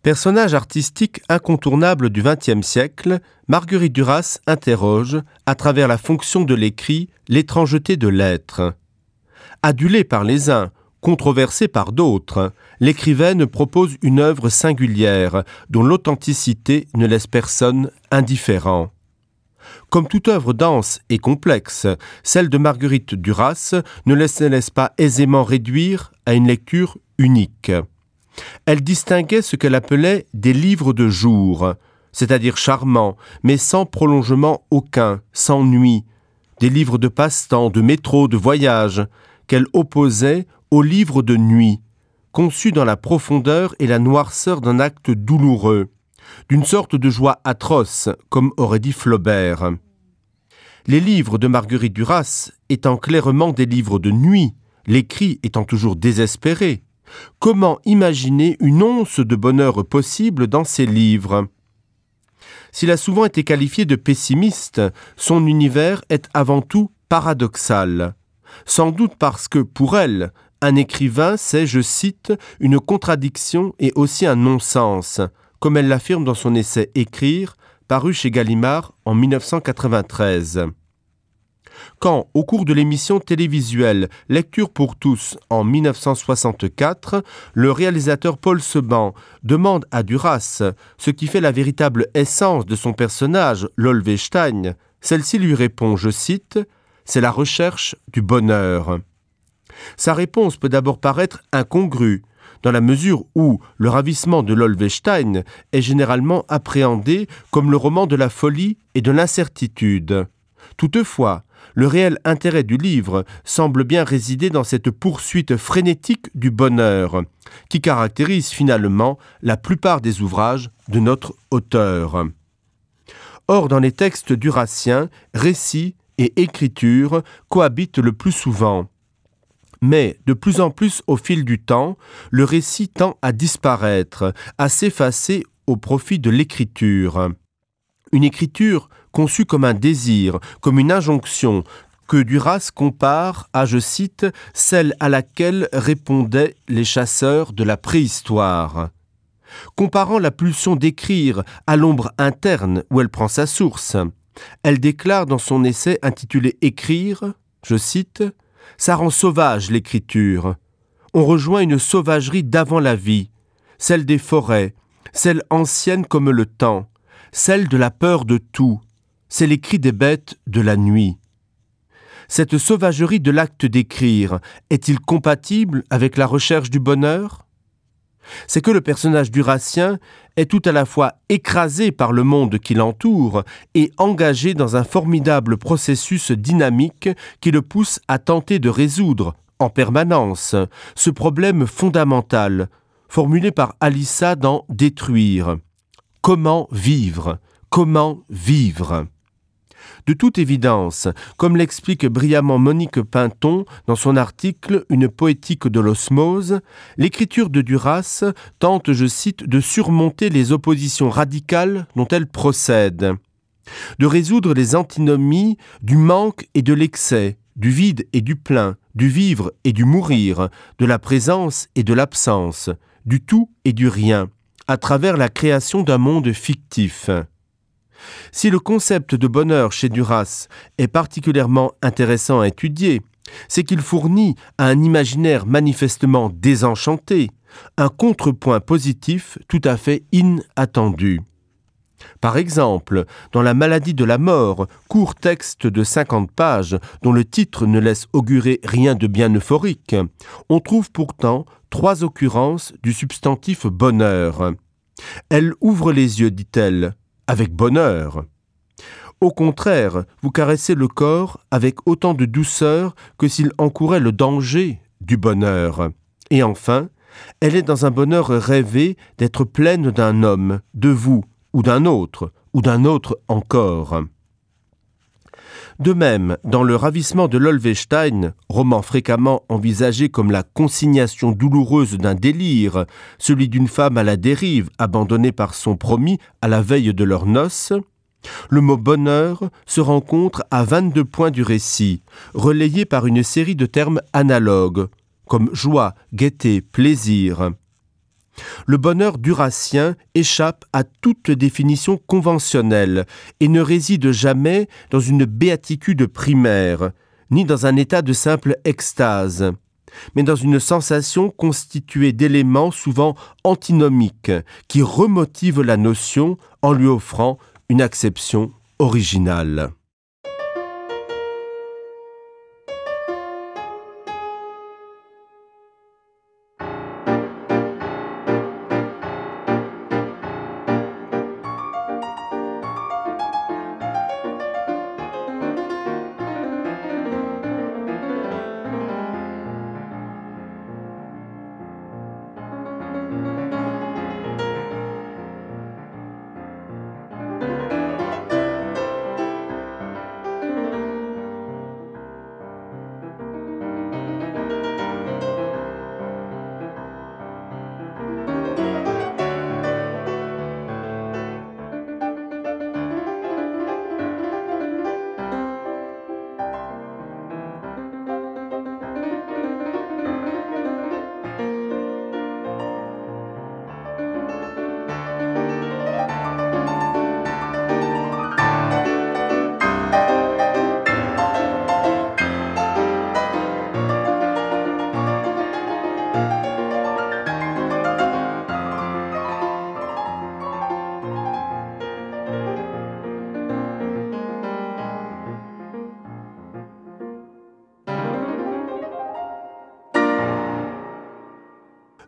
Personnage artistique incontournable du XXe siècle, Marguerite Duras interroge, à travers la fonction de l'écrit, l'étrangeté de l'être. Adulée par les uns, controversée par d'autres, l'écrivaine propose une œuvre singulière dont l'authenticité ne laisse personne indifférent. Comme toute œuvre dense et complexe, celle de Marguerite Duras ne laisse, ne laisse pas aisément réduire à une lecture unique. Elle distinguait ce qu'elle appelait des livres de jour, c'est-à-dire charmants, mais sans prolongement aucun, sans nuit, des livres de passe-temps, de métro, de voyage, qu'elle opposait aux livres de nuit, conçus dans la profondeur et la noirceur d'un acte douloureux, d'une sorte de joie atroce, comme aurait dit Flaubert. Les livres de Marguerite Duras étant clairement des livres de nuit, l'écrit étant toujours désespéré, comment imaginer une once de bonheur possible dans ces livres S'il a souvent été qualifié de pessimiste, son univers est avant tout paradoxal. Sans doute parce que, pour elle, un écrivain, c'est, je cite, une contradiction et aussi un non-sens, comme elle l'affirme dans son essai Écrire, paru chez Gallimard en 1993. Quand, au cours de l'émission télévisuelle Lecture pour tous en 1964, le réalisateur Paul Seban demande à Duras ce qui fait la véritable essence de son personnage, Lolvestein, celle-ci lui répond, je cite, C'est la recherche du bonheur. Sa réponse peut d'abord paraître incongrue, dans la mesure où le ravissement de Lolvestein est généralement appréhendé comme le roman de la folie et de l'incertitude. Toutefois, le réel intérêt du livre semble bien résider dans cette poursuite frénétique du bonheur, qui caractérise finalement la plupart des ouvrages de notre auteur. Or, dans les textes duraciens, récits et écriture cohabitent le plus souvent. Mais, de plus en plus au fil du temps, le récit tend à disparaître, à s'effacer au profit de l'écriture. Une écriture conçue comme un désir, comme une injonction, que Duras compare à, je cite, celle à laquelle répondaient les chasseurs de la préhistoire. Comparant la pulsion d'écrire à l'ombre interne où elle prend sa source, elle déclare dans son essai intitulé Écrire, je cite, Ça rend sauvage l'écriture. On rejoint une sauvagerie d'avant la vie, celle des forêts, celle ancienne comme le temps, celle de la peur de tout, c'est les cris des bêtes de la nuit. Cette sauvagerie de l'acte d'écrire est-il compatible avec la recherche du bonheur C'est que le personnage duracien est tout à la fois écrasé par le monde qui l'entoure et engagé dans un formidable processus dynamique qui le pousse à tenter de résoudre, en permanence, ce problème fondamental, formulé par Alissa dans Détruire. Comment vivre Comment vivre De toute évidence, comme l'explique brillamment Monique Pinton dans son article Une poétique de l'osmose, l'écriture de Duras tente, je cite, de surmonter les oppositions radicales dont elle procède, de résoudre les antinomies du manque et de l'excès, du vide et du plein, du vivre et du mourir, de la présence et de l'absence, du tout et du rien, à travers la création d'un monde fictif. Si le concept de bonheur chez Duras est particulièrement intéressant à étudier, c'est qu'il fournit à un imaginaire manifestement désenchanté un contrepoint positif tout à fait inattendu. Par exemple, dans la maladie de la mort, court texte de 50 pages dont le titre ne laisse augurer rien de bien euphorique, on trouve pourtant trois occurrences du substantif bonheur. Elle ouvre les yeux, dit-elle, avec bonheur. Au contraire, vous caressez le corps avec autant de douceur que s'il encourait le danger du bonheur. Et enfin, elle est dans un bonheur rêvé d'être pleine d'un homme, de vous, ou d'un autre, ou d'un autre encore. De même, dans le ravissement de Lolvestein, roman fréquemment envisagé comme la consignation douloureuse d'un délire, celui d'une femme à la dérive abandonnée par son promis à la veille de leur noces, le mot bonheur se rencontre à 22 points du récit, relayé par une série de termes analogues, comme joie, gaieté, plaisir. Le bonheur durassien échappe à toute définition conventionnelle et ne réside jamais dans une béatitude primaire, ni dans un état de simple extase, mais dans une sensation constituée d'éléments souvent antinomiques qui remotivent la notion en lui offrant une acception originale.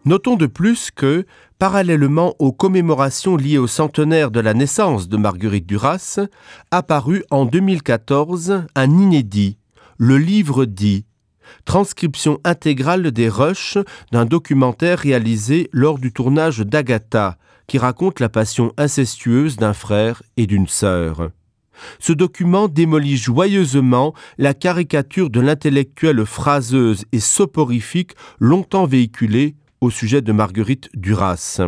Notons de plus que, parallèlement aux commémorations liées au centenaire de la naissance de Marguerite Duras, apparut en 2014 un inédit, le livre dit, transcription intégrale des rushs d'un documentaire réalisé lors du tournage d'Agatha, qui raconte la passion incestueuse d'un frère et d'une sœur. Ce document démolit joyeusement la caricature de l'intellectuelle phraseuse et soporifique longtemps véhiculée au sujet de Marguerite Duras.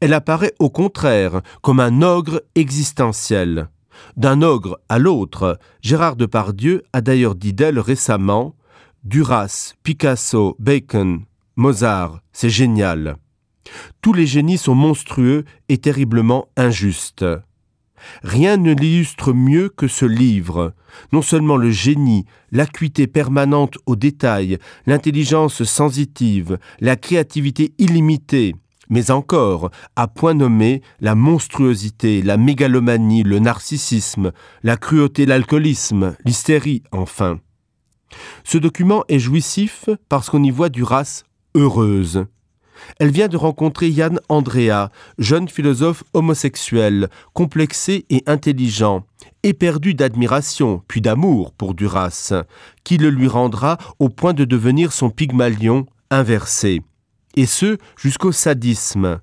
Elle apparaît au contraire comme un ogre existentiel. D'un ogre à l'autre, Gérard Depardieu a d'ailleurs dit d'elle récemment: Duras, Picasso, Bacon, Mozart, c'est génial. Tous les génies sont monstrueux et terriblement injustes. Rien ne l'illustre mieux que ce livre, non seulement le génie, l'acuité permanente au détail, l'intelligence sensitive, la créativité illimitée, mais encore, à point nommé, la monstruosité, la mégalomanie, le narcissisme, la cruauté, l'alcoolisme, l'hystérie, enfin. Ce document est jouissif parce qu'on y voit du race heureuse. Elle vient de rencontrer Yann Andrea, jeune philosophe homosexuel, complexé et intelligent, éperdu d'admiration puis d'amour pour Duras, qui le lui rendra au point de devenir son pygmalion inversé. Et ce jusqu'au sadisme.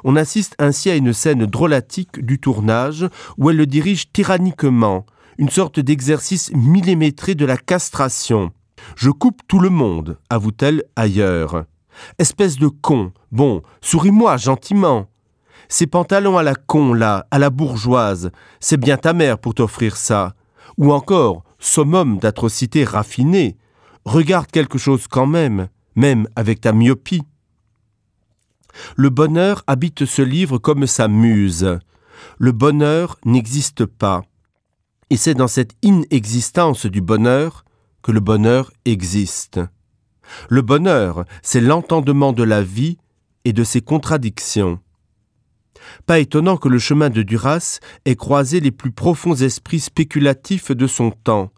On assiste ainsi à une scène drôlatique du tournage où elle le dirige tyranniquement, une sorte d'exercice millimétré de la castration. Je coupe tout le monde, avoue-t-elle ailleurs. Espèce de con, bon, souris-moi gentiment. Ces pantalons à la con là, à la bourgeoise, c'est bien ta mère pour t'offrir ça. Ou encore, summum d'atrocité raffinée, regarde quelque chose quand même, même avec ta myopie. Le bonheur habite ce livre comme sa muse. Le bonheur n'existe pas. Et c'est dans cette inexistence du bonheur que le bonheur existe. Le bonheur, c'est l'entendement de la vie et de ses contradictions. Pas étonnant que le chemin de Duras ait croisé les plus profonds esprits spéculatifs de son temps,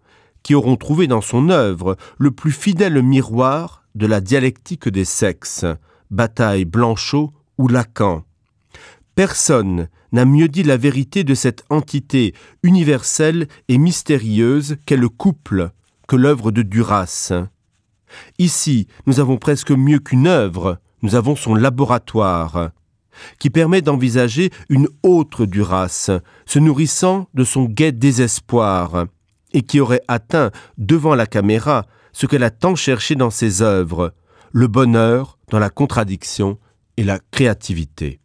qui auront trouvé dans son œuvre le plus fidèle miroir de la dialectique des sexes, bataille Blanchot ou Lacan. Personne n'a mieux dit la vérité de cette entité universelle et mystérieuse qu'est le couple que l'œuvre de Duras. Ici, nous avons presque mieux qu'une œuvre, nous avons son laboratoire, qui permet d'envisager une autre Duras, se nourrissant de son gai désespoir, et qui aurait atteint devant la caméra ce qu'elle a tant cherché dans ses œuvres, le bonheur dans la contradiction et la créativité.